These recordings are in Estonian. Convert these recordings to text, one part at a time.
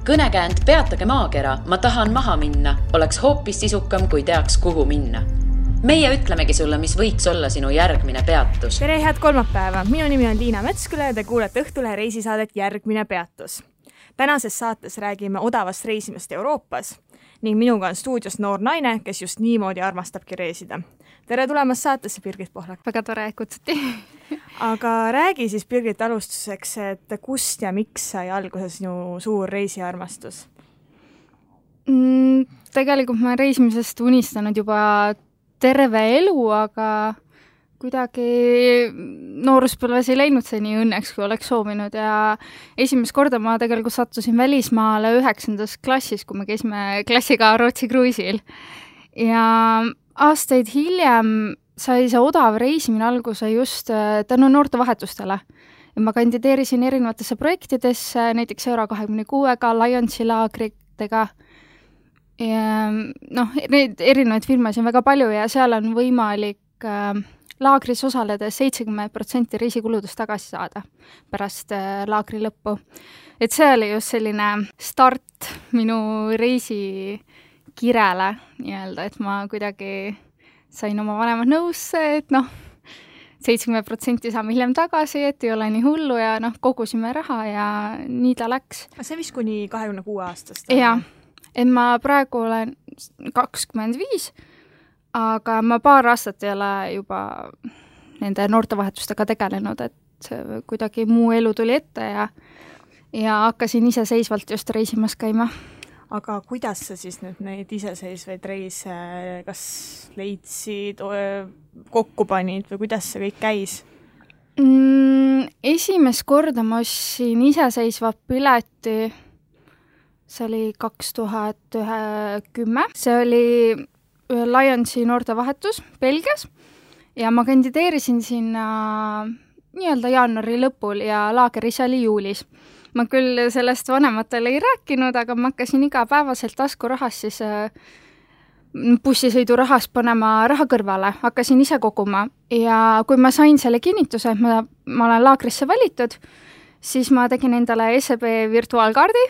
Kõnekäänd Peatage maakera, ma tahan maha minna, oleks hoopis sisukam, kui teaks, kuhu minna. Meie ütlemegi sulle, mis võiks olla sinu järgmine peatus. Tere, head kolmapäeva! Minu nimi on Liina Metsküle ja te kuulete Õhtulehe reisisaadet Järgmine peatus. Tänases saates räägime odavast reisimast Euroopas ning minuga on stuudios noor naine, kes just niimoodi armastabki reisida. Tere tulemast saatesse, Birgit Pohlak! Väga tore, kutsuti. Aga räägi siis, Birgit, alustuseks, et kust ja miks sai alguse sinu suur reisiarmastus? Tegelikult ma reisimisest unistanud juba terve elu, aga kuidagi nooruspõlves ei läinud see nii õnneks, kui oleks soovinud ja esimest korda ma tegelikult sattusin välismaale 9. klassis, kui me käisime klassiga Rootsi kruiisil. Ja aastaid hiljem sai see odav reisimine alguse just tänu noortevahetustele. Ja ma kandideerisin erinevatesse projektidesse, näiteks Euro26-ga, Lionsi laagritega. Ja, neid erinevaid firmasid on väga palju ja seal on võimalik laagris osaledes 70% reisikuludest tagasi saada pärast laagri lõppu. Et see oli just selline start minu reisikirele, et ma kuidagi sain oma vanemad nõusse, et 70% saame hiljem tagasi, et ei ole nii hullu ja kogusime raha ja nii ta läks. See vist kuni 26 aastast? Jah, et ma praegu olen 25, aga ma paar aastat ei ole juba nende noortevahetustega tegelenud, et kuidagi muu elu tuli ette ja hakkasin iseseisvalt just reisimas käima. Aga kuidas sa siis nüüd neid iseseisvaid reise kas leidsid, kokku panid või kuidas see kõik käis? Esimest korda ma ostsin iseseisva pileti, see oli 2010. See oli Lionsi noortevahetus Belgias ja ma kandideerisin sinna nii-öelda jaanuari lõpul ja laager ise oli juulis. Ma küll sellest vanematele ei rääkinud, aga ma hakkasin igapäevaselt taskurahast siis bussisõidurahast panema raha kõrvale, hakkasin ise koguma ja kui ma sain selle kinnituse, et ma olen laagrisse valitud, siis ma tegin endale SEB virtuaalkaardi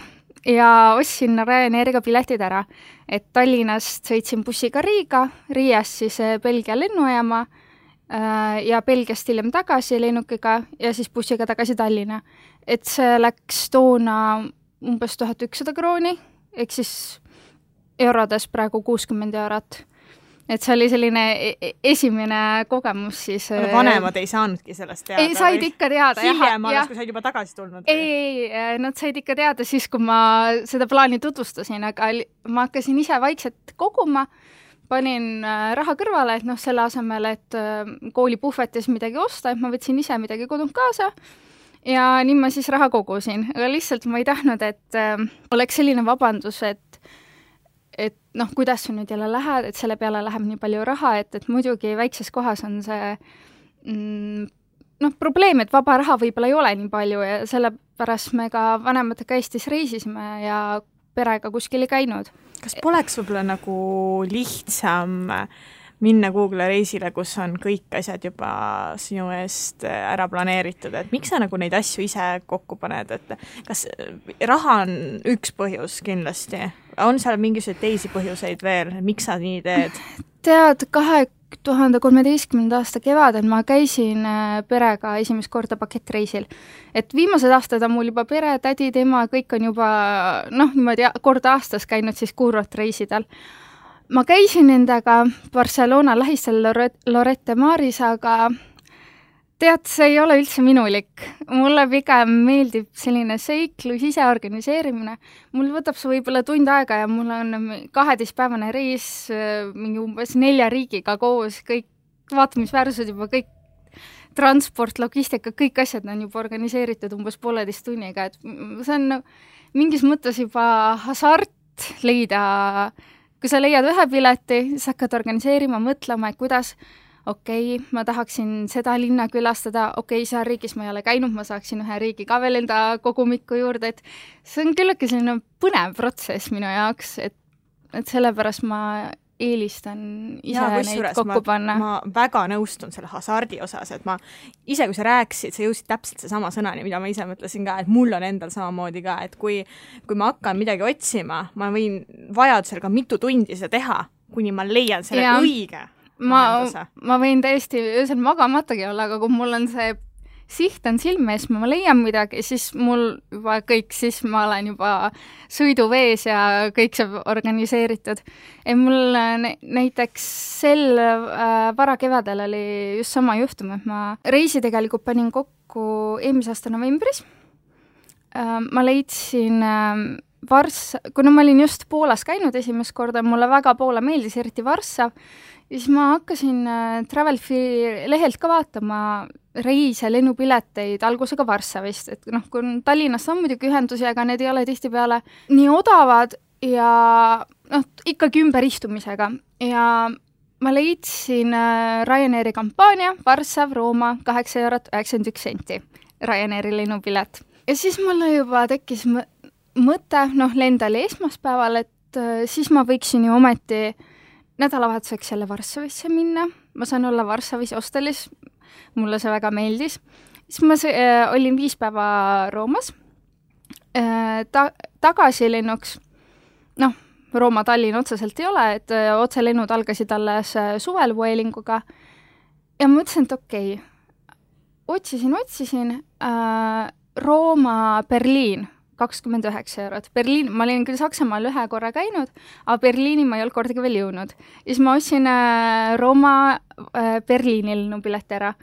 ja ostsin Ryanairiga piletid ära, et Tallinnast sõitsin bussiga Riiga, Riiast siis Belgia lennujaama ja Belgiast hiljem tagasi lennukiga ja siis bussiga tagasi Tallinna. Et see läks toona umbes 1100 krooni, ehk siis eurodes praegu 60 eurot. Et see oli selline esimene kogemus siis. Vanemad ei saanudki sellest teada? Ei, said ikka teada. Hiljem alles, kui said juba tagasi tulnud? Ei, nad said ikka teada siis, kui ma seda plaani tutvustasin, aga ma hakkasin ise vaikselt koguma, panin raha kõrvale, et selle asemel, et koolipuhvetis midagi osta, et ma võtsin ise midagi kodunt kaasa ja nii ma siis raha kogusin. Aga lihtsalt ma ei tahtnud, et oleks selline vabandus, et kuidas sa nüüd jälle lähed, et selle peale läheb nii palju raha, et muidugi väikses kohas on see probleem, et vaba raha võib-olla ei ole nii palju ja sellepärast me ka vanematega Eestis reisisime ja perega kuskil ei käinud. Kas poleks võib-olla nagu lihtsam minna Google reisile, kus on kõik asjad juba sinu eest ära planeeritud, et miks sa nagu neid asju ise kokku paned, et kas raha on üks põhjus kindlasti? On seal mingisuguseid teisi põhjuseid veel, miks sa nii teed? Tead, 2013. aasta kevadel ma käisin perega esimest korda pakettreisil. Et viimased aastad on mul juba pere, tädi, tema, kõik on juba niimoodi korda aastas käinud siis kuurortreisidel. Ma käisin nendega Barcelona lähistel Lorette Maris, aga tead, see ei ole üldse minulik. Mulle pigem meeldib selline seiklus, ise organiseerimine. Mul võtab see võib-olla tund aega ja mul on 12-päevane reis mingi umbes 4 riigiga koos, kõik vaatamisväärsused juba, kõik transport, logistika, kõik asjad on juba organiseeritud umbes 1,5 tunniga. Et see on mingis mõttes juba hasart leida. Kui sa leiad ühe pileti, siis hakkad organiseerima, mõtlema, et kuidas ma tahaksin seda linna külastada, seal riigis ma ei ole käinud, ma saaksin ühe riigi ka veel enda kogumikku juurde, et see on küllegi selline põnev protsess minu jaoks, et sellepärast ma eelistan ise neid kokku panna. Ma väga nõustun selle hasardi osas, et ma ise, kui sa rääkisid, sa jõusid täpselt see sama sõnani, mida ma ise mõtlesin ka, et mul on endal samamoodi ka, et kui ma hakkan midagi otsima, ma võin vajadusel ka mitu tundi seda teha, kuni ma leian selle õige lahenduse. Ma võin täiesti öösel magamatagi olla, aga kui mul on see siht on silme ees, ma leian midagi, siis mul juba kõik, siis ma olen juba sõiduvees ja kõik see organiseeritud. Mul näiteks sel varakevadel oli just sama juhtum, et ma reisi tegelikult panin kokku eelmise aasta novembris. Ma leidsin kuna ma olin just Poolas käinud esimest korda, mulle väga Poola meeldis, eriti Varssav, ja siis ma hakkasin Travelfi lehelt ka vaatama reise, lennupileteid algusega Varssavist, et kui Tallinnast on muidugi ühendusi, aga need ei ole tihtipeale nii odavad ja ikkagi ümberistumisega. Ja ma leidsin Ryanairi kampaania Varssav, Rooma, 8,91 € Ryanairi lennupilet. Ja siis mulle juba tekkis mõte, lendali esmaspäeval, et siis ma võiksin ju ometi nädalavahetuseks jälle Varssavisse minna. Ma saan olla Varssavis hostelis, mulle see väga meeldis. Siis ma olin 5 päeva Roomas. Tagasilennuks, Rooma Tallinn otseselt ei ole, et otselennud algasid alles suvel Vuelinguga. Ja ma mõtlesin, et okei, otsisin Rooma Berliin, 29 €. Berliin, ma olin küll Saksamaal 1 korra käinud, aga Berliini ma ei olnud kordagi veel jõudnud. Ja siis ma ostsin Rooma Berliini lennupileti ära.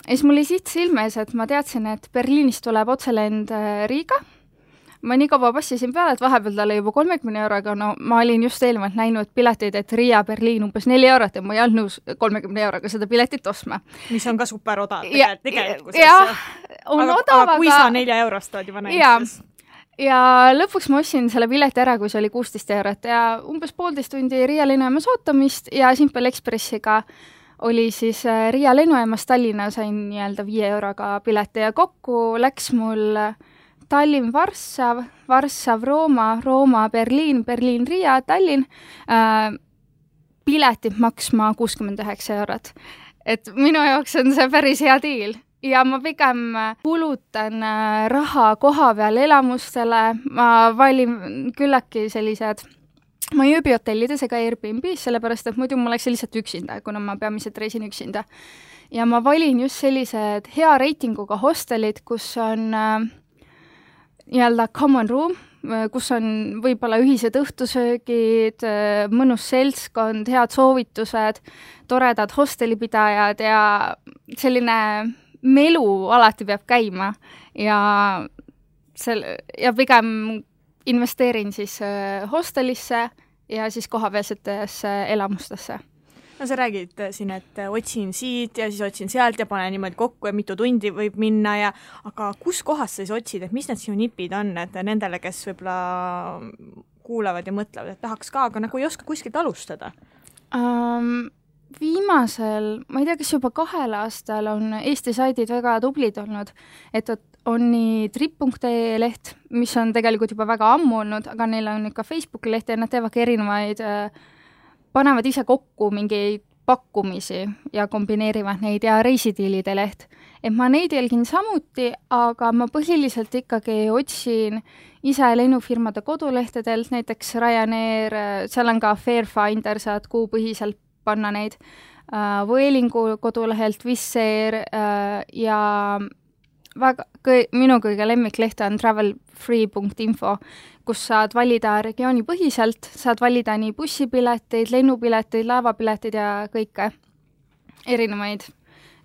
Ja siis mul oli siht silmes, et ma teadsin, et Berliinist tuleb otselend Riiga. Ma nii kaua passisin peale, et vahepeal talle juba 30 €, ma olin just eelmalt näinud pileteid, et Riia Berliin umbes 4 € ja ma ei olnud nõus 30 € seda piletit ostma. Mis on ka super odav tegelikult. Jah, on odav, aga kui sa 4 € tood juba näiteks. Ja lõpuks ma ostsin selle pileti ära, kui see oli 16 € ja umbes 1,5 tundi Riia lennujaamas ootamist ja Simple Expressiga oli siis Riia lennujaamas Tallinna sain nii-öelda 5 € pileti ja kokku läks mul Tallinn, Varssav, Varssav, Rooma, Rooma, Berliin, Berliin, Riia, Tallinn, piletid maksma 69 €. Et minu jaoks on see päris hea diil. Ja ma pigem kulutan raha koha peal elamustele, ma valin küllaki sellised, ma ei ööbi hotellides ega Airbnb's, sellepärast et muidu ma oleks lihtsalt üksinda, kuna ma peamiselt reisin üksinda. Ja ma valin just sellised hea reitinguga hostelid, kus on nii-öelda common room, kus on võib-olla ühised õhtusöögid, mõnus seltskond, head soovitused, toredad hostelipidajad ja selline melu alati peab käima ja pigem investeerin siis hostelisse ja siis kohapealsetesse elamustesse. No sa räägid siin, et otsin siit ja siis otsin sealt ja panen niimoodi kokku ja mitu tundi võib minna aga kus kohas sa siis otsid, et mis need sinu nipid on, et nendele, kes võib-olla kuulavad ja mõtlevad, et tahaks ka, aga ei oska kuskilt alustada? Viimasel, ma ei tea, kas juba 2 aastal on Eesti saidid väga tublid olnud, et on nii trip.ee leht, mis on tegelikult juba väga ammu olnud, aga neil on ikka Facebooki leht ja nad teevadki erinevaid, panevad ise kokku mingeid pakkumisi ja kombineerivad neid ja reisidiilide leht. Et ma neid jälgin samuti, aga ma põhiliselt ikkagi otsin ise lennufirmade kodulehtedelt, näiteks Ryanair, seal on ka Fairfinder, saad kuupõhiselt panna neid, Vuelingu kodulehelt, Wizz Air ja minu kõige lemmikleht on travelfree.info, kus saad valida regioonipõhiselt, saad valida nii bussipileteid, lennupileteid, laevapileteid ja kõike erinevaid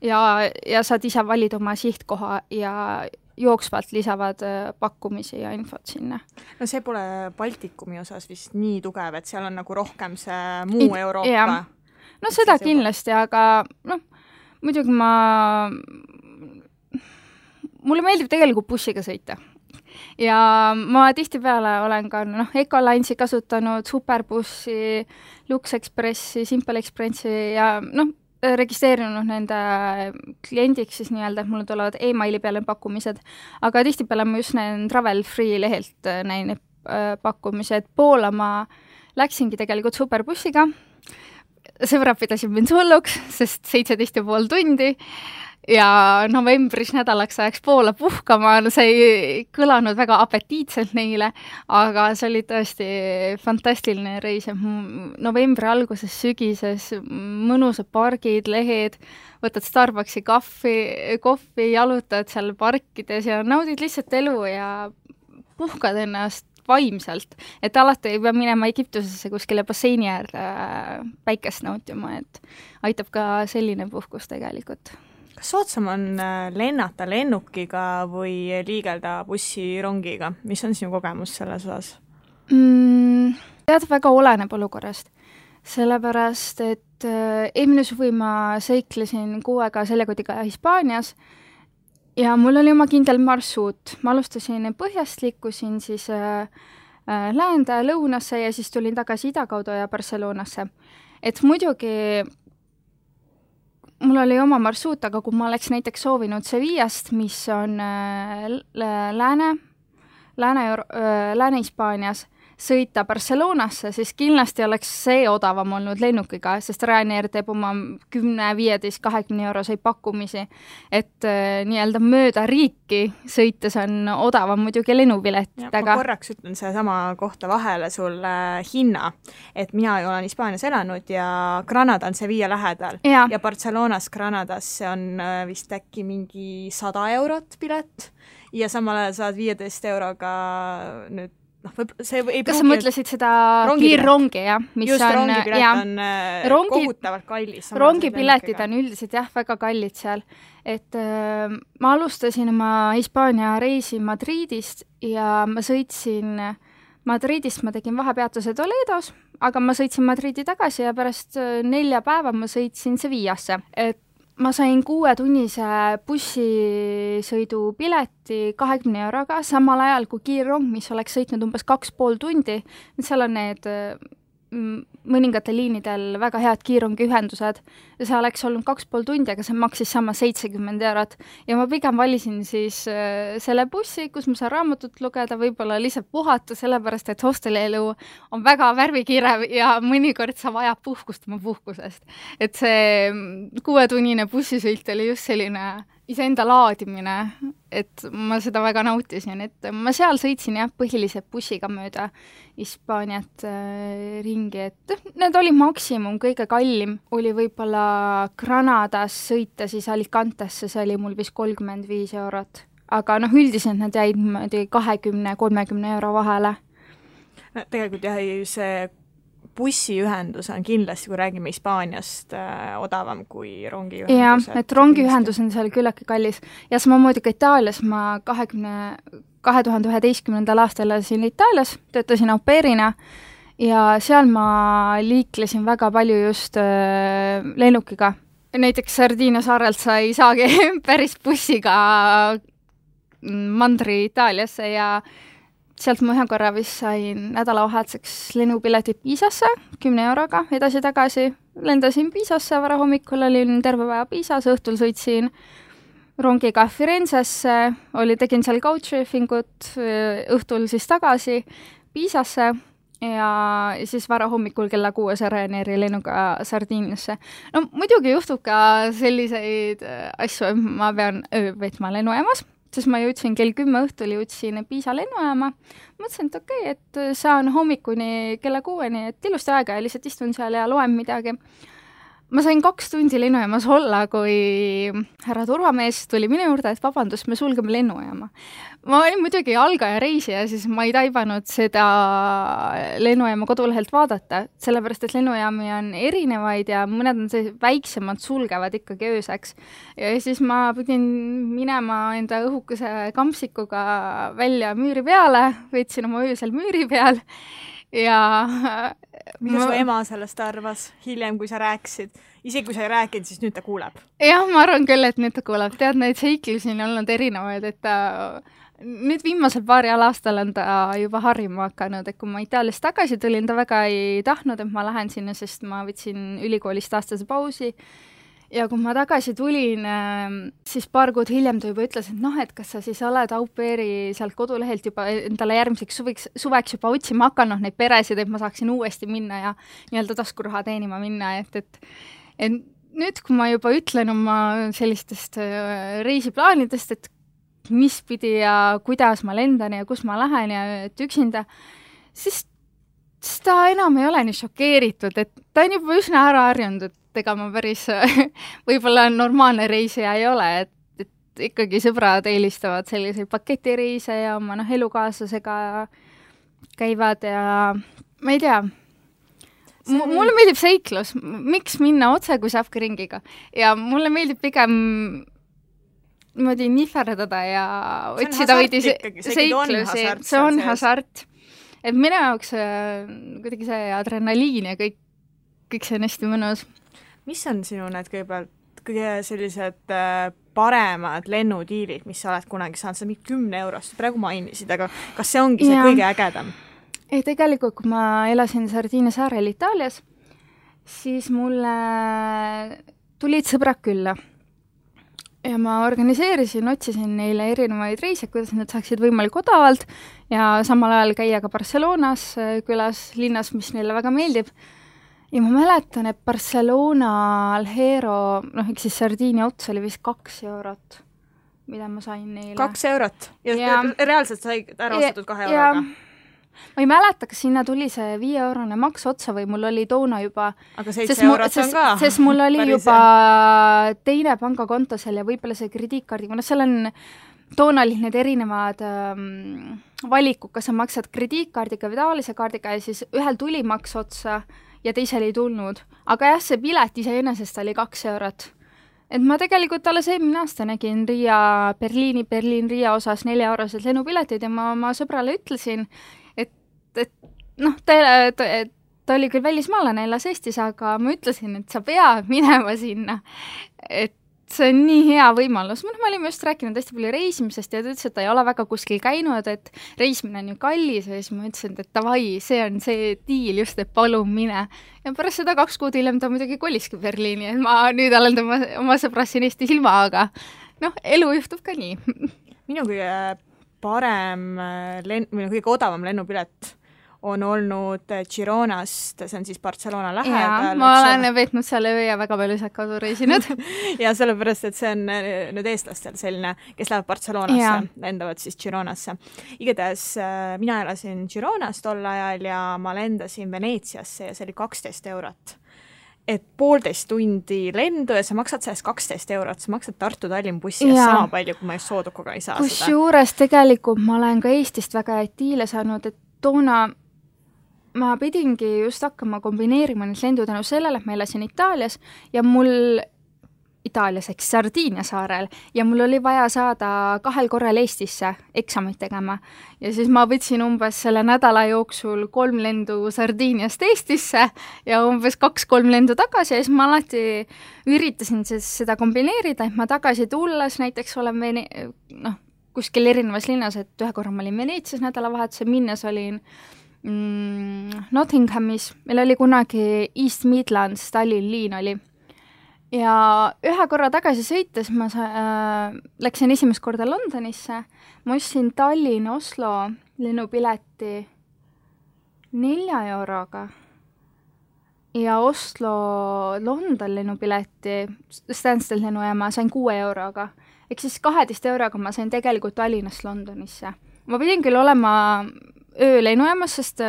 ja saad ise valida oma sihtkoha ja jooksvalt lisavad pakkumisi ja infot sinna. No see pole Baltikumi osas vist nii tugev, et seal on nagu rohkem see muu Euroopa. No seda kindlasti, aga muidugi mulle meeldib tegelikult bussiga sõita. Ja ma tihtipeale olen ka Ecolinesi kasutanud, Superbussi, Lux Expressi, Simple Expressi ja registreerinud nende kliendiks siis nii-öelda, et mulle tulevad e-maili peale pakkumised, aga tihtipeale ma just näen Travel Free lehelt näin pakkumised. Poola ma läksingi tegelikult Superbussiga sõbrad pidasid mind hulluks, sest 17,5 tundi ja novembris nädalaks ajaks Poola puhkama, see ei kõlanud väga apetiitselt neile, aga see oli tõesti fantastiline reis, novembri alguses, sügises, mõnusad pargid, lehed, võtad Starbucksi kohvi, jalutad seal parkides ja naudid lihtsalt elu ja puhkad ennast vaimselt, et alati ei pea minema Egiptusesse kuskile basseini äärde päikest nautima, et aitab ka selline puhkus tegelikult. Kas soodsam on lennata lennukiga või liigelda bussirongiga? Mis on sinu kogemus selles osas? Tead, väga oleneb olukorrast. Sellepärast, et eelmine suvi ma seiklesin 6 aega seljakotiga Hispaanias ja mul oli oma kindel marsruut. Ma alustasin põhjast, liikusin siis läände, lõunasse ja siis tulin tagasi ida kaudu ja Barcelonasse. Et muidugi mul oli oma marsruut, aga kui ma oleks näiteks soovinud Sevillast, mis on Lääne-Hispaanias, sõita Barcelonasse, siis kindlasti oleks see odavam olnud lennukiga, sest Ryanair teeb oma 10, 15, 20 euroseid pakkumisi, et nii-öelda mööda riiki sõites on odavam muidugi lennupiletitega. Ma korraks ütlen sama kohta vahele sulle hinna, et mina olen Hispaanias elanud ja Granada on Sevilla lähedal ja Barcelonas Granadasse on vist äkki mingi 100 eurot pilet ja samal ajal saad 15 euroga nüüd see ei kas sa mõtlesid seda kiirrongi, jah? Just rongipilet on kohutavalt kallis. Rongipiletid on üldiselt väga kallid seal. Et ma alustasin oma Hispaania reisi Madridist ja ma sõitsin Madridist, ma tegin vahepeatuse Toledos, aga ma sõitsin Madridi tagasi ja pärast 4 päeva ma sõitsin Sevillasse. Et ma sain 6-tunnise bussisõidu pileti 20 euroga, samal ajal kui kiirrong, mis oleks sõitnud umbes 2,5 tundi. Seal on need mõningatel liinidel väga head kiirrongiühendused ja see oleks olnud 2,5 tundi, aga see maksis sama 70 eurot. Ja ma pigem valisin siis selle bussi, kus ma saan raamatut lugeda, võib-olla lihtsalt puhata, sellepärast, et hostelielu on väga värvikirev ja mõnikord sa vajab puhkust oma puhkusest. Et see 6-tunnine bussisõit oli just selline iseenda laadimine, et ma seda väga nautisin, et ma seal sõitsin põhiliselt bussiga mööda Hispaaniat ringi, et need oli maksimum, kõige kallim oli võib-olla Granadas sõita siis Alicantesse, see oli mul vist 35 eurot, aga üldiselt nad jäid 20-30 euro vahele. Tegelikult see bussiühendus on kindlasti, kui räägime Hispaaniast, odavam kui rongiühendus. Jah, et rongiühendus on seal küllaki kallis. Ja samamoodi ka Itaalias ma 2011. aastal elasin Itaalias, töötasin au pairina ja seal ma liiklesin väga palju just lennukiga. Näiteks Sardiinia saarelt sa ei saagi päris bussiga mandri Itaaliasse ja sealt ma ühe korra vist sain nädalavahetuseks lennupiletid Piisasse 10 euroga edasi-tagasi. Lendasin Piisasse, varahommikul olin terve päeva Piisas, õhtul sõitsin rongiga Firenzesse, tegin seal couchsurfingut, õhtul siis tagasi Piisasse ja siis varahommikul kella 6 Ryanairi lennuga Sardiiniasse. No muidugi juhtub ka selliseid asju, ma pean veetma lennujaamas, sest ma jõudsin kell 10 õhtul, jõudsin Piisa lennujaama. Mõtlesin, et okei, et saan hommikuni kella 6-ni, et ilusti aega ja lihtsalt istun seal ja loen midagi. Ma sain 2 tundi lennujaamas olla, kui härra turvamees tuli minu juurde, et vabandust, me sulgeme lennujaama. Ma olin muidugi algaja reisija, siis ma ei taibanud seda lennujaama kodulehelt vaadata, sellepärast, et lennujaami on erinevaid ja mõned on väiksemad, sulgevad ikkagi ööseks. Ja siis ma pidin minema enda õhukese kampsikuga välja müüri peale, võtsin oma öösel müüri peal ja mida su ema sellest arvas hiljem, kui sa rääkisid? Isegi kui sa ei rääkinud, siis nüüd ta kuuleb. Jah, ma arvan küll, et nüüd ta kuuleb. Tead, neid seiklusi on olnud erinevaid, et nüüd viimasel paaril aastal on ta juba harjuma hakanud, et kui ma Itaaliast tagasi tulin, ta väga ei tahtnud, et ma lähen sinna, sest ma võtsin ülikoolist aastase pausi ja kui ma tagasi tulin, siis paar kuud hiljem ta juba ütles, et et kas sa siis oled au pair'i sealt kodulehelt juba endale järgmiseks suveks juba otsima hakanud neid peresid, et ma saaksin uuesti minna ja nii-öelda taskuraha teenima minna, et nüüd, kui ma juba ütlen oma sellistest reisiplaanidest, et mis pidi ja kuidas ma lendan ja kus ma lähen ja et üksinda, siis ta enam ei ole nii šokeeritud, et ta on juba üsna ära harjunud, et ega ma päris võib-olla normaalne reisija ei ole, et ikkagi sõbrad eelistavad selliseid paketireise ja oma elukaaslasega käivad ja ma ei tea, mulle meeldib seiklus, miks minna otse, kui saabki ringiga ja mulle meeldib pigem niimoodi nihverdada ja otsida veidi seiklusi, see on hasart. Et minu jaoks kuidagi see adrenaliin ja kõik see on hästi mõnus. Mis on sinu need kõige sellised paremad lennudiilid, mis sa oled kunagi saanud, sa mingi 10 eurost praegu mainisid, aga kas see ongi see kõige ägedam? Ei, tegelikult, kui ma elasin Sardiinia saarel Itaalias, siis mulle tulid sõbrad külla. Ja ma organiseerisin, otsisin neile erinevaid reise, kuidas nad saaksid võimalik odavalt ja samal ajal käia ka Barcelonas külas, linnas, mis neile väga meeldib. Ja ma mäletan, et Barcelona Alhero, ehk siis Sardiinia ots oli vist 2 eurot, mida ma sain neile. 2 eurot? Ja reaalselt sai ära ostetud 2 euroga? Ma ei mäleta, kas sinna tuli see 5-eurone maks otsa või mul oli toona juba... Aga 7 eurot on ka? Sest mul oli juba teine pangakonto seal ja võib-olla see krediitkaardiga, seal on... Toona olid need erinevad valikud, kas sa maksad krediitkaardiga või tavalise kaardiga ja siis ühel tuli maks otsa ja teisel ei tulnud. Aga jah, see pilet iseenesest oli 2 eurot. Et ma tegelikult alles eelmine aasta nägin Berliin-Riia osas 4-eurosed lennupiletid ja ma oma sõbrale ütlesin, ta oli küll välismaalane, elas Eestis, aga ma ütlesin, et sa pead minema sinna. Et see on nii hea võimalus. Me olime just rääkinud hästi palju reisimisest ja ta ütles, et ta ei ole väga kuskil käinud, et reisimine on ju kallis ja siis ma ütlesin, et davai, see on see diil just, et palun mine. Ja pärast seda 2 kuud hiljem ta muidugi koliski Berliini, et ma nüüd olen oma sõbras siin Eestis ilma, aga elu juhtub ka nii. Minu kõige parem kõige odavam lennupilet on olnud Gironast, see on siis Barcelona lähedal. Ma olen veetnud seal öö ja väga palju sealt kasu reisinud. ja sellepärast, et see on nüüd eestlastel selline, kes lähevad Barcelonasse, lendavad siis Gironasse. Igatahes mina elasin Gironas tol ajal ja ma lendasin Veneetsiasse ja see oli 12 eurot. Et 1,5 tundi lendu ja sa maksad sellest 12 eurot, sa maksad Tartu-Tallinn bussi ja sama palju, kui ma just Soodukuga ei saa seda. Kusjuures tegelikult ma olen ka Eestist väga etiile saanud, et toona ma pidingi just hakkama kombineerima need lendu tänu sellele, et ma elasin Itaalias ja Itaalias ehk Sardiinia saarel ja mul oli vaja saada 2 korral Eestisse eksamit tegema ja siis ma võtsin umbes selle nädala jooksul 3 lendu Sardiiniast Eestisse ja umbes 2-3 lendu tagasi ja siis ma alati üritasin seda kombineerida, et ma tagasi tulles näiteks olen kuskil erinevas linnas, et ühe korra ma olin Veneetsias nädalavahetuse, minnes olin Nottinghamis, meil oli kunagi East Midlands, Tallinn liin oli ja ühe korra tagasi sõites ma läksin esimest korda Londonisse, ma ostsin Tallinn-Oslo lennupileti 4 euroga ja Oslo-London lennupileti Stansted lennujaama sain 6 euroga, ehk siis 12 euroga ma sain tegelikult Tallinnast Londonisse. Ma pidin küll olema öö lennujaamas, sest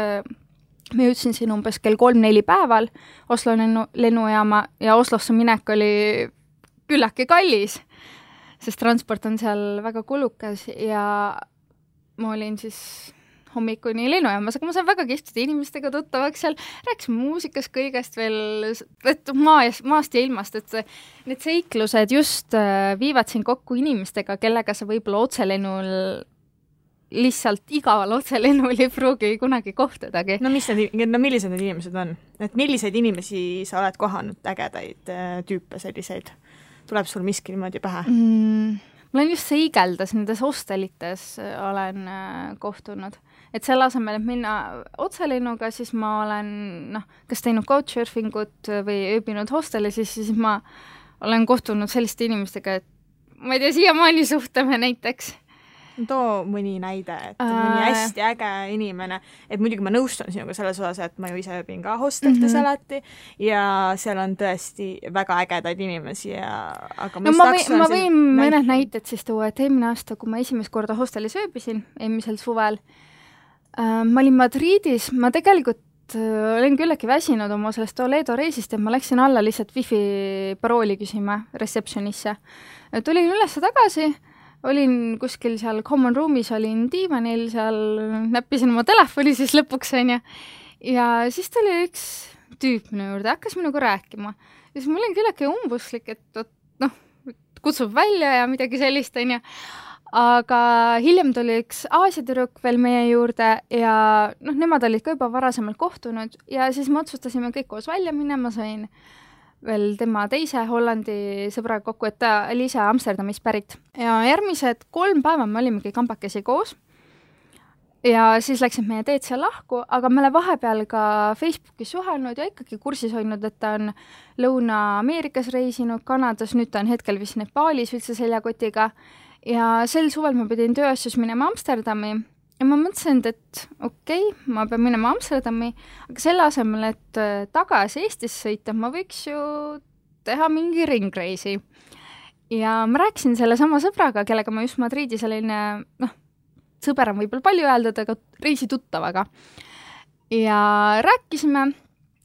me jõudsin siin umbes kell 3-4 päeval Oslo lennujaama ja Oslosse minek oli küllake kallis, sest transport on seal väga kulukas ja ma olin siis hommikuni lennujaamas, aga ma sain väga kihvtide inimestega tuttavaks seal, rääkisime muusikast kõigest veel, et maast ja ilmast, et need seiklused just viivad siin kokku inimestega, kellega sa võib-olla otselennul lihtsalt igaval otselennul ei pruugi kunagi kohtadagi. Millised need inimesed on? Et milliseid inimesi sa oled kohanud, ägedaid tüüpe selliseid? Tuleb sul miski niimoodi pähe? Ma olen just seigeldas, nendes hostelites olen kohtunud. Et selle asemel, et minna otselennuga, siis ma olen kas teinud couchsurfingut või ööbinud hostelis, siis ma olen kohtunud selliste inimestega, et ma ei tea, siiamaani suhtleme näiteks. Too mõni näide, et mõni hästi äge inimene, et muidugi ma nõustun sinuga selles osas, et ma ju ise ööbin ka hosteltes alati ja seal on tõesti väga ägedaid inimesi aga ma võin mõned näited siis tuua, et eelmine aasta, kui ma esimest korda hostelis ööbisin, eelmisel suvel, ma olin Madridis, ma tegelikult olen küllegi väsinud oma sellest Toledo reisist ja ma läksin alla lihtsalt wifi parooli küsima receptionisse. Tulin üles tagasi, olin kuskil seal common room'is, olin diivanil, seal näppisin oma telefoni siis lõpuks, ja siis tuli üks tüüp minu juurde, hakkas minuga rääkima. Ja siis ma olin küllegi umbuslik, et kutsub välja ja midagi sellist, aga hiljem tuli üks Aasia tüdruk veel meie juurde ja nemad olid ka juba varasemalt kohtunud ja siis me otsustasime kõik koos välja minna, ma sain veel tema teise Hollandi sõbraga kokku, et ta oli ise Amsterdamis pärit. Ja järgmised 3 päeva me olimegi kambakesi koos ja siis läksid meie teed seal lahku, aga me oleme vahepeal ka Facebookis suhelnud ja ikkagi kursis hoidnud, et ta on Lõuna-Ameerikas reisinud, Kanadas, nüüd ta on hetkel vist Nepaalis üldse seljakotiga ja sel suvel ma pidin tööasjus minema Amsterdami ja ma mõtlesin, et okei, ma pean minema Amsterdami, aga selle asemel, et tagasi Eestis sõita, ma võiks ju teha mingi ringreisi. Ja ma rääkisin selle sama sõbraga, kellega ma just Madridis olin, sõber on võib-olla palju öeldud, aga reisituttavaga. Ja rääkisime,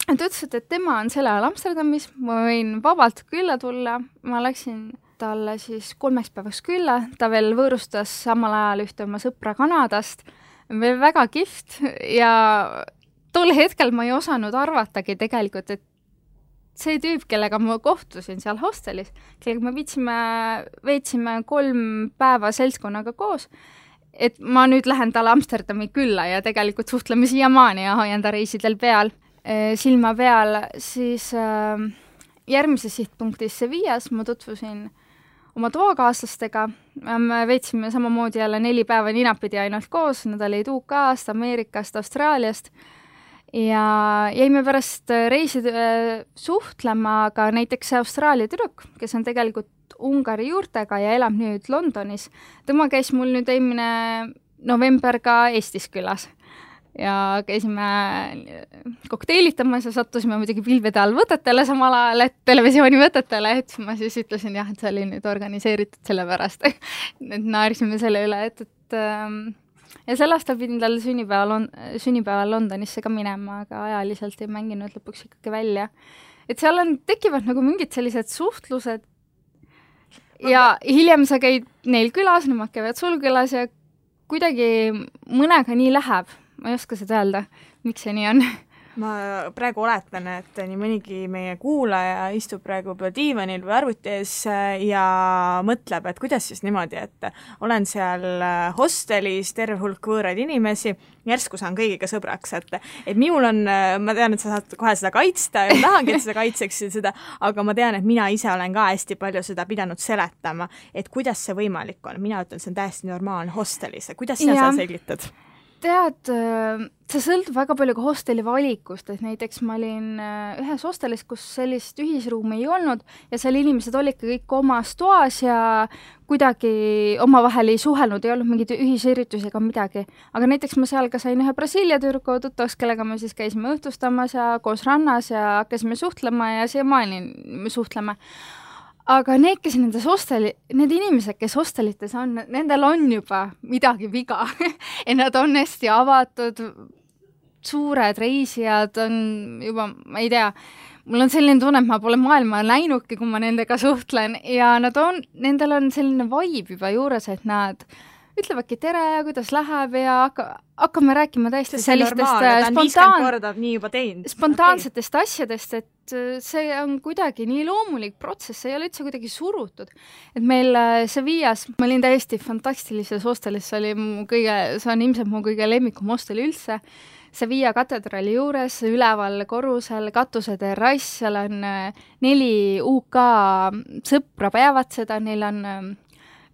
et ütlesid, et tema on selle ajal Amsterdamis, ma võin vabalt külla tulla, ma läksin talle siis 3 päevaks külla, ta veel võõrustas samal ajal ühte oma sõpra Kanadast, veel väga kihvt ja tol hetkel ma ei osanud arvatagi tegelikult, et see tüüp, kellega ma kohtusin seal hostelis, kellega me veetsime 3 päeva seltskonnaga koos, et ma nüüd lähen talle Amsterdami külla ja tegelikult suhtleme siiamaani ja hoian ta reisidel peal, silma peal, siis järgmises sihtpunktis Sevillas ma tutvusin oma toakaaslastega, me veetsime samamoodi jälle 4 päeva ninapidi ainult koos, nad olid UK-st, Ameerikast, Austraaliast ja jäime pärast reisi suhtlema ka näiteks Austraalia tüdruk, kes on tegelikult Ungari juurtega ja elab nüüd Londonis. Tema käis mul nüüd eelmine november ka Eestis külas ja käisime kokteilitamas ja sattusime muidugi pilvede all võtetele samal ajal, et televisiooni võtetele, et ma siis ütlesin jah, et see oli nüüd organiseeritud selle pärast, et naersime selle üle, ja sel aastal pidin tal sünnipäeval Londonisse ka minema, aga ajaliselt ei mänginud lõpuks ikkagi välja. Et seal tekivad nagu mingid sellised suhtlused ja hiljem sa käid neil külas, nemad käivad sul külas ja kuidagi mõnega nii läheb. Ma ei oska seda öelda, miks see nii on. Ma praegu oletan, et nii mõnigi meie kuulaja istub praegu diivanil või arvuti ees ja mõtleb, et kuidas siis niimoodi, et olen seal hostelis, terve hulk võõraid inimesi, järsku saan kõigiga sõbraks, et minul on, ma tean, et sa saad kohe seda kaitsta ja tahangi, et seda kaitseksid seda, aga ma tean, et mina ise olen ka hästi palju seda pidanud seletama, et kuidas see võimalik on. Mina ütlen, see on täiesti normaalne hostelis. Kuidas sa seda selgitad? Tead, see sõltub väga palju ka hosteli valikust, et näiteks ma olin ühes hostelis, kus sellist ühisruumi ei olnud ja seal inimesed olid kõik omas toas ja kuidagi omavahel ei suhelnud, ei olnud mingid ühisüritusi ega midagi. Aga näiteks ma seal ka sain ühe Brasiilia tüdruku tuttavaks, kellega me siis käisime õhtustamas ja koos rannas ja hakkasime suhtlema ja siiamaani me suhtleme. Aga need inimesed, kes hostelites on, nendel on juba midagi viga. Ja nad on hästi avatud, suured reisijad on juba, ma ei tea, mul on selline tunne, et ma pole maailma näinudki, kui ma nendega suhtlen ja nendel on selline vibe juba juures, et nad ütlevadki tere ja kuidas läheb ja hakkame rääkima täiesti sellistest spontaansetest asjadest, et see on kuidagi nii loomulik protsess, see ei ole üldse kuidagi surutud. Et meil Sevillas, ma olin täiesti fantastilises hostelis, see on ilmselt mu kõige lemmikum hostel üldse, Sevilla katedraali juures, üleval korrusel, katuse terrass, seal on 4 UK sõpra peavad seda, neil on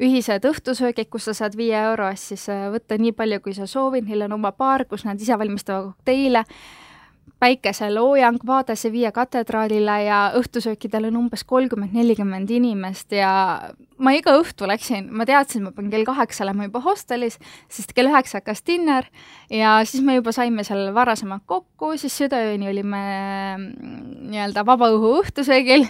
ühised õhtusöögid, kus sa saad 5 euro eest siis võtta nii palju, kui sa soovid, neil on oma baar, kus nad ise valmistavad kokteile. päikeseloojang, vaade Sevilla katedraalile ja õhtusöökidel on umbes 30-40 inimest ja ma iga õhtu läksin, ma teadsin, ma pean kell 8 olema juba hostelis, sest kell 9 hakkas dinner ja siis me juba saime seal varasemalt kokku, siis südaööni olime nii-öelda vabaõhu õhtusöögil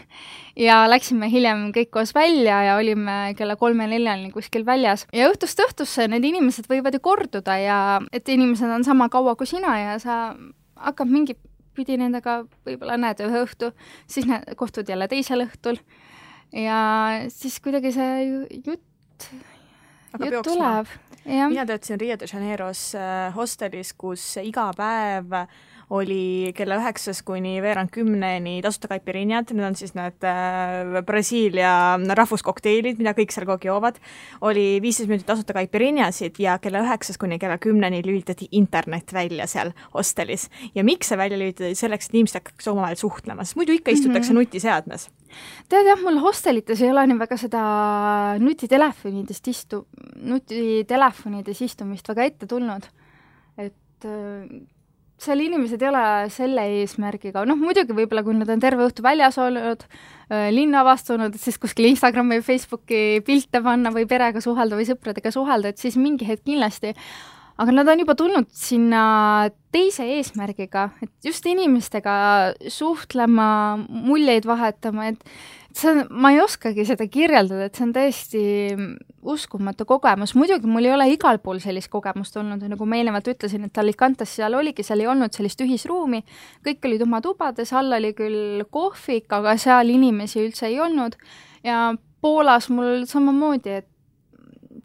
ja läksime hiljem kõik koos välja ja olime kella 3-4 kuskil väljas. Ja õhtust õhtusse need inimesed võivad ju korduda ja et inimesed on sama kaua kui sina ja sa hakkab mingi pidi nendega võib-olla näed ühe õhtu, siis kohtud jälle teisel õhtul ja siis kuidagi see jutt tuleb. Mina töötasin Rio de Janeiros hostelis, kus iga päev oli kella 9 kuni veerand 10 tasuta caipirinhad, need on siis need Brasiilia rahvuskokteilid, mida kõik seal kogu joovad, oli 15 minutit tasuta caipirinhasid ja kella 9 kuni kella 10 lülitati internet välja seal hostelis. Ja miks see välja lülitati? Selleks, et inimesed hakkaks omavahel suhtlema, sest muidu ikka istutakse nutiseadmes. Tead jah, mul hostelites ei ole nii väga seda nutitelefonides istumist väga ette tulnud, et seal inimesed ei ole selle eesmärgiga, muidugi võib-olla kui nad on terve õhtu väljas olnud, linna avastunud, siis kuskil Instagrami või Facebooki pilte panna või perega suhelda või sõpradega suhelda, et siis mingi hetk kindlasti, aga nad on juba tulnud sinna teise eesmärgiga, et just inimestega suhtlema, muljeid vahetama, et ma ei oskagi seda kirjeldada, et see on täiesti uskumatu kogemus. Muidugi mul ei ole igal pool sellist kogemust olnud, nagu ma eelnevalt ütlesin, et Alicantes seal oligi, seal ei olnud sellist ühisruumi, kõik olid oma tubades, all oli küll kohvik, aga seal inimesi üldse ei olnud ja Poolas mul samamoodi, et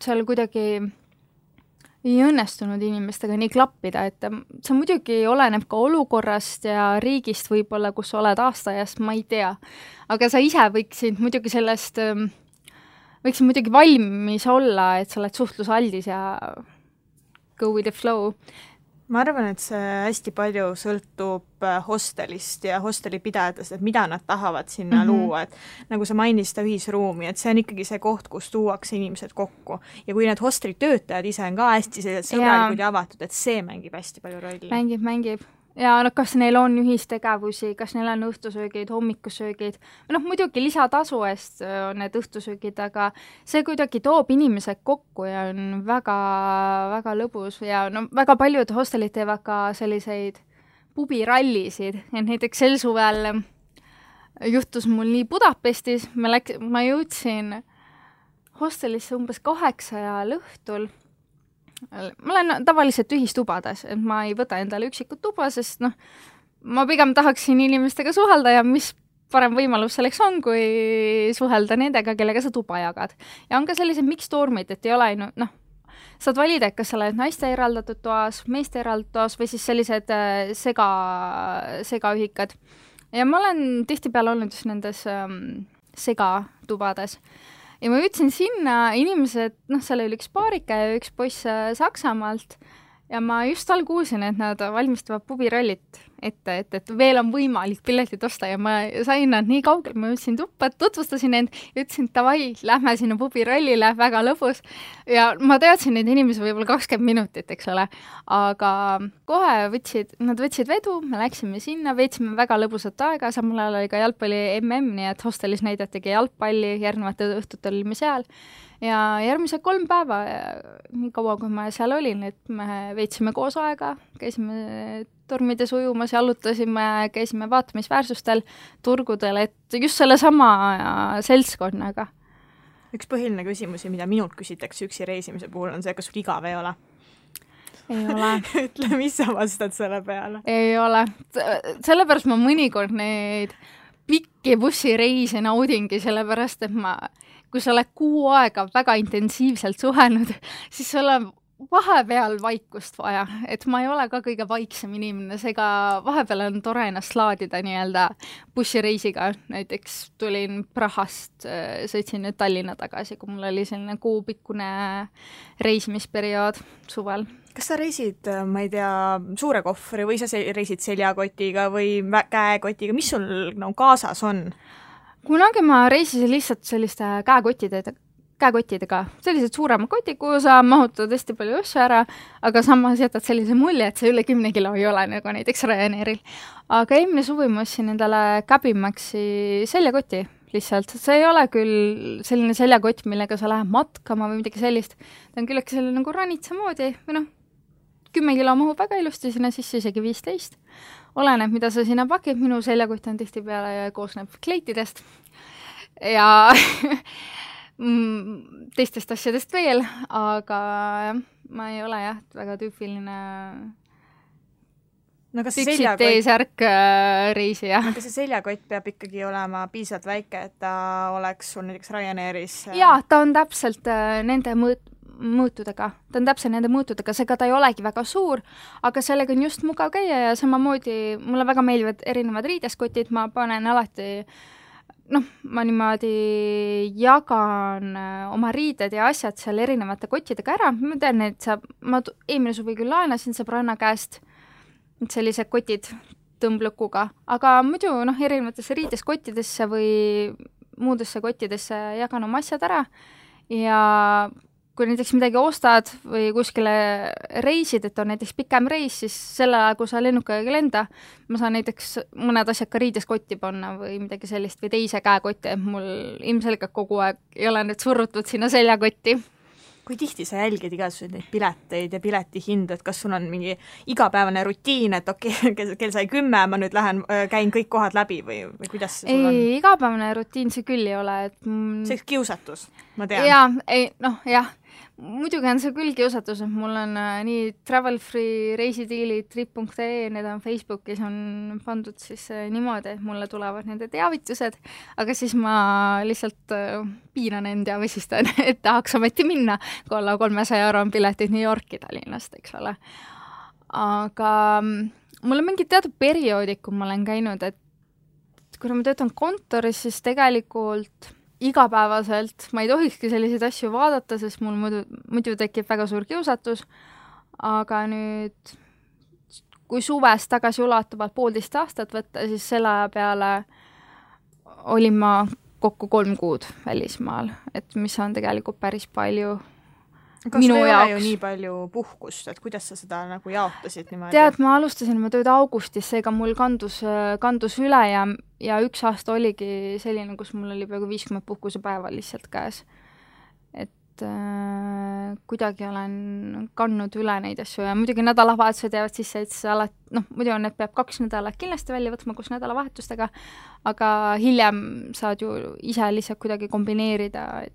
seal kuidagi ei õnnestunud inimestega nii klappida, et see muidugi oleneb ka olukorrast ja riigist võib-olla, kus oled aastaajast, ma ei tea. Aga sa ise võiksid muidugi valmis olla, et sa oled suhtlusaldis ja go with the flow. Ma arvan, et see hästi palju sõltub hostelist ja hostelipidajatest, et mida nad tahavad sinna luua, et nagu sa mainisid ühisruumi, et see on ikkagi see koht, kus tuuakse inimesed kokku. Ja kui need hosteli töötajad ise on ka hästi sõbralikud ja avatud, et see mängib hästi palju rolli. Mängib. Ja kas neil on ühistegevusi, kas neil on õhtusöögid, hommikusöögid, muidugi lisatasu eest on need õhtusöögid, aga see kuidagi toob inimesed kokku ja on väga, väga lõbus ja väga paljud hostelid teevad ka selliseid pubirallisid, et näiteks sel suvel juhtus mul nii Budapestis, ma jõudsin hostelisse umbes 8 õhtul. Ma olen tavaliselt ühistubades, et ma ei võta endale üksikut tuba, sest ma pigem tahaksin inimestega suhelda ja mis parem võimalus selleks on, kui suhelda nendega, kellega sa tuba jagad. Ja on ka sellised mixtormid, et ei ole saad valida, et kas sa oled naiste eraldatud toas, meeste eraldatud toas või siis sellised segaühikad. Ja ma olen tihtipeale olnud just nendes segatubades. Ja ma jõudsin sinna, inimesed, seal oli üks paarika ja üks poiss Saksamaalt ja ma just all kuulsin, et nad valmistavad pubirallit ette, et veel on võimalik piletit osta ja ma sain nad nii kaugel, ma jõudsin tuppa, tutvustasin end ja ütlesin, et davai, lähme sinna pubirallile, väga lõbus. Ja ma teadsin neid inimesi võib-olla 20 minutit, eks ole, aga kohe nad võtsid vedu, me läksime sinna, veetsime väga lõbusat aega, samal ajal oli ka jalgpalli MM, nii et hostelis näidatigi jalgpalli, järgnevate õhtutel olime seal. Ja järgmised 3 päeva, nii kaua kui ma seal olin, et me veetsime koos aega, käisime tormides ujumas, jalutasime, käisime vaatamisväärsustel, turgudel, et just selle sama seltskonnaga. Üks põhiline küsimusi, mida minult küsitakse üksi reisimise puhul, on see, kas sul igav ei ole? Ei ole. Ütle, mis sa vastad selle peale? Ei ole. Sellepärast ma mõnikord neid pikki bussireise naudingi, sellepärast, et kui sa oled 6 aega väga intensiivselt suhelnud, siis sul on vahepeal vaikust vaja, et ma ei ole ka kõige vaiksem inimene, seega vahepeal on tore ennast laadida nii-öelda bussireisiga, näiteks tulin Prahast, sõitsin nüüd Tallinna tagasi, kui mul oli selline kuupikkune reisimisperiood suvel. Kas sa reisid, ma ei tea, suure kohvri või sa reisid seljakotiga või käekotiga, mis sul kaasas on? Kunagi ma reisisin lihtsalt selliste käekottidega, sellised suuremad kotid, kuhu sa mahutad hästi palju asju ära, aga samas jätad sellise mulje, et see üle 10 kilo ei ole nagu näiteks Ryanairil. Aga eelmine suvi ma ostsin endale Cabimaxi seljakoti lihtsalt. See ei ole küll selline seljakott, millega sa lähed matkama või midagi sellist. Ta on küllegi selline nagu ranitsa moodi või 10 kilo mahub väga ilusti sinna sisse, isegi 15. Oleneb, mida sa sinna pakid. Minu seljakott on tihtipeale ja koosneb kleitidest ja teistest asjadest veel, aga ma ei ole väga tüüpiline püksid T-särk reisija. Aga see seljakott peab ikkagi olema piisavalt väike, et ta oleks sul näiteks Ryanairis? Jaa, ta on täpselt nende mõõtudega. Ta on täpselt nende mõõtudega, seega ta ei olegi väga suur, aga sellega on just mugav käia ja samamoodi mulle väga meeldivad erinevad riideskotid, ma panen alati ma niimoodi jagan oma riided ja asjad seal erinevate kottidega ära. Ma tean, et ma eelmine suvi küll laenasin sõbranna käest sellised kotid tõmblõkuga, aga muidu erinevatesse riideskottidesse või muudesse kottidesse jagan oma asjad ära ja kui näiteks midagi ostad või kuskile reisid, et on näiteks pikem reis, siis selle ajal, kui sa lennukaga ei lenda, ma saan näiteks mõned asjad ka riideskotti panna või midagi sellist või teise käekotti, et mul ilmselgelt kogu aeg ei ole nüüd surrutud sinna seljakotti. Kui tihti sa jälgid igasuguseid neid pileteid ja piletihindu, et kas sul on mingi igapäevane rutiin, et kell sai 10, ma nüüd käin kõik kohad läbi või kuidas see sul on? Ei, igapäevane rutiin see küll ei ole. See kiusatus, ma tean. Jah, muidugi on see küll kiusatus, et mul on nii Travel Free reisidiilid, trip.ee, need on Facebookis on pandud siis niimoodi, et mulle tulevad nende teavitused, aga siis ma lihtsalt piiran end ja vesistan, et tahaks ometi minna, kui alla 300 € on piletid New Yorki Tallinnast, eks ole. Aga mul on mingi teatud perioodid, kui ma olen käinud, et kui ma töötan kontoris, siis tegelikult igapäevaselt ma ei tohikski selliseid asju vaadata, sest mul muidu tekib väga suur kiusatus, aga nüüd kui suvest tagasi ulatuvalt 1,5 aastat võtta, siis selle aja peale olin ma kokku 3 kuud välismaal, et mis on tegelikult päris palju minu jaoks. Kas ei ole ju nii palju puhkust, et kuidas sa seda nagu jaotasid niimoodi? Tead, ma alustasin oma tööd augustis, seega mul kandus üle ja 1 aasta oligi selline, kus mul oli peaaegu 50 puhkusepäeva lihtsalt käes. Et kuidagi olen kandnud üle neid asju ja muidugi nädalavahetused jäävad sisse, et muidu need peab 2 nädalat kindlasti välja võtma koos nädalavahetustega, aga hiljem saad ju ise lihtsalt kuidagi kombineerida,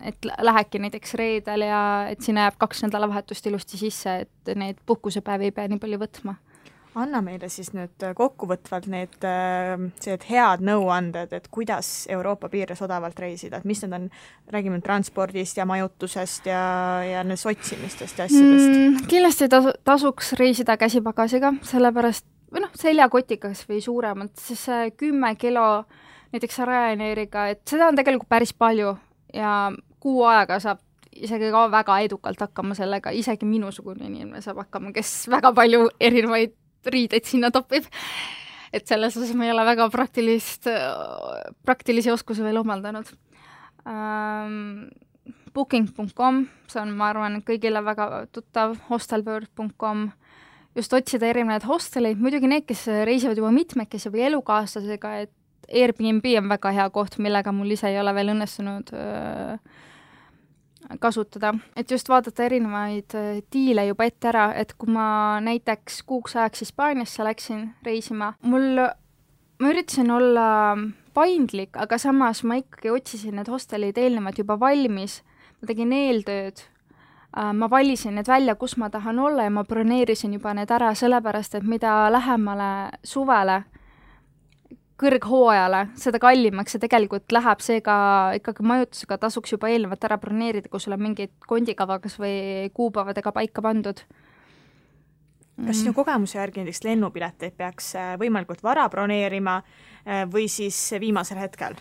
et lähedki näiteks reedel ja et sinna jääb 2 nädalavahetust ilusti sisse, et need puhkusepäevi ei pea nii palju võtma. Anna meile siis nüüd kokkuvõtvalt need head nõuanded, et kuidas Euroopa piires odavalt reisida, et mis need on, räägime transpordist ja majutusest ja otsimistest ja asjadest. Kindlasti tasuks reisida käsipagasiga, sellepärast seljakotikas või suuremalt, siis 10 kilo näiteks Ryanairiga, et seda on tegelikult päris palju ja kuu aega saab isegi ka väga edukalt hakkama sellega, isegi minusugune inimene saab hakkama, kes väga palju erinevaid riideid sinna topib. Et selles osas ma ei ole väga praktilisi oskusi veel omaldanud. Booking.com, see on, ma arvan, kõigile väga tuttav, hostelbird.com, just otsida erinevaid hosteleid, muidugi need, kes reisivad juba mitmekesi või elukaaslasega, et Airbnb on väga hea koht, millega mul ise ei ole veel õnnestunud kasutada. Et just vaadata erinevaid diile juba ette ära, et kui ma näiteks kuuks ajaks Hispaaniasse läksin reisima, ma üritasin olla paindlik, aga samas ma ikkagi otsisin need hostelid eelnevalt juba valmis, ma tegin eeltööd, ma valisin need välja, kus ma tahan olla ja ma broneerisin juba need ära, sellepärast, et mida lähemale suvele, kõrghooajale, seda kallimaks see tegelikult läheb, seega ikkagi majutusega tasuks juba eelnevalt ära broneerida, kui sul on mingid kondikavagas või kuupäevadega paika pandud. Kas sinu kogemuse järgi näiteks lennupileteid peaks võimalikult vara broneerima või siis viimasel hetkel?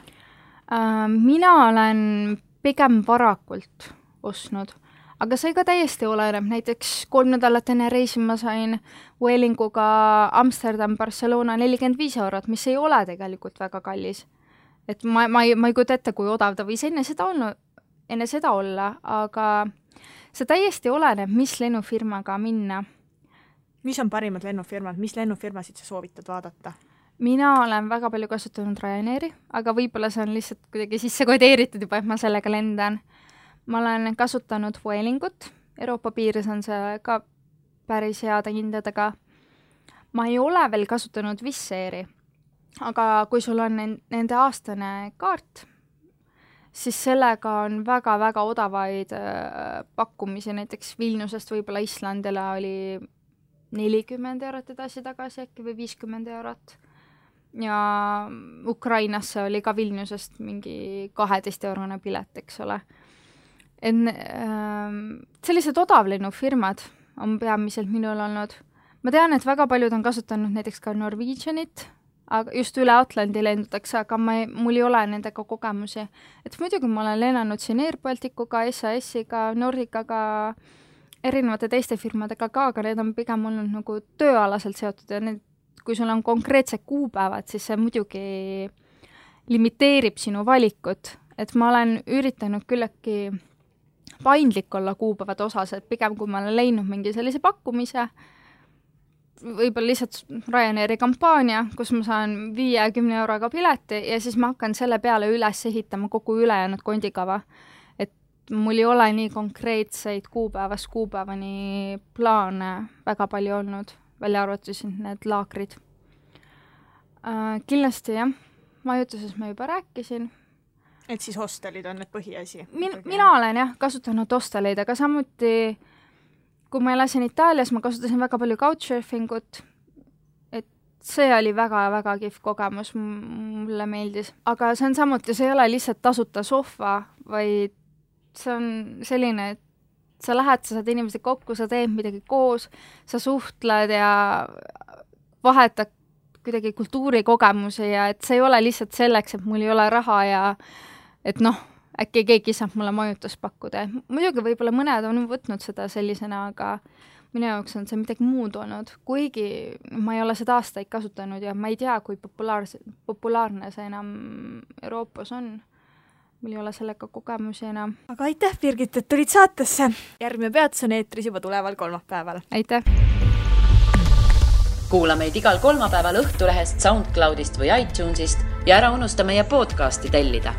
Mina olen pigem varakult ostnud, aga see ka täiesti oleneb, näiteks 3 nädalat enne reisi ma sain Vuelinguga Amsterdam, Barcelona 45 €, mis ei ole tegelikult väga kallis. Et ma ei kujuta ette, kui odav ta võis enne seda enne seda olla, aga see täiesti oleneb, mis lennufirmaga minna. Mis on parimad lennufirmad? Mis lennufirmasid sa soovitad vaadata? Mina olen väga palju kasutanud Ryanairi, aga võib-olla see on lihtsalt kuidagi sisse kodeeritud juba, et ma sellega lendan. Ma olen kasutanud Vuelingut, Euroopa piires on see ka päris heade hindadega. Ma ei ole veel kasutanud Wizz Airi, aga kui sul on nende aastane kaart, siis sellega on väga-väga odavaid pakkumisi, näiteks Vilniusest võib-olla Islandile oli 40 eurot edasi-tagasi äkki või 50 eurot. Ja Ukrainasse oli ka Vilniusest mingi 12-eurone pilet, eks ole. Sellised odavlennufirmad on peamiselt minul olnud. Ma tean, et väga paljud on kasutanud näiteks ka Norwegianit, aga just üle Atlandi lendutakse, aga mul ei ole nendega kogemusi. Et muidugi ma olen lennanud siin Air Balticuga, SAS-iga, Nordicaga, erinevate teiste firmadega ka, aga need on pigem olnud nagu tööalaselt seotud ja need, kui sul on konkreetsed kuupäevad, siis see muidugi limiteerib sinu valikut. Et ma olen üritanud küllegi paindlik olla kuupäevade osas, et pigem kui ma olen leidnud mingi sellise pakkumise, võib-olla lihtsalt Ryanairi kampaania, kus ma saan 50 euroga pileti ja siis ma hakkan selle peale üles ehitama kogu ülejäänud kondikava. Et mul ei ole nii konkreetseid kuupäevast kuupäevani plaane väga palju olnud, välja arvatusin need laakrid. Kindlasti jah, majutuses ma juba rääkisin. Et siis hostelid on need põhiasi? Mina olen jah kasutanud hosteleid, aga samuti kui ma elasin Itaalias, ma kasutasin väga palju couchsurfingut, et see oli väga-väga kihv kogemus, mulle meeldis. Aga see on samuti, see ei ole lihtsalt tasuta sohva, vaid see on selline, et sa lähed, sa saad inimesed kokku, sa teed midagi koos, sa suhtled ja vahetad kuidagi kultuurikogemusi ja et see ei ole lihtsalt selleks, et mul ei ole raha ja et äkki keegi saab mulle majutust pakkuda. Muidugi võib-olla mõned on võtnud seda sellisena, aga minu jaoks on see midagi muud olnud. Kuigi ma ei ole seda aastaid kasutanud ja ma ei tea, kui populaarne see enam Euroopas on. Mul ei ole sellega kogemusi enam. Aga aitäh, Birgit, et tulid saatesse. Järgmine peatus on eetris juba tuleval kolmapäeval. Aitäh! Kuula meid igal kolmapäeval Õhtulehest, SoundCloudist või iTunesist ja ära unusta meie podcasti tellida.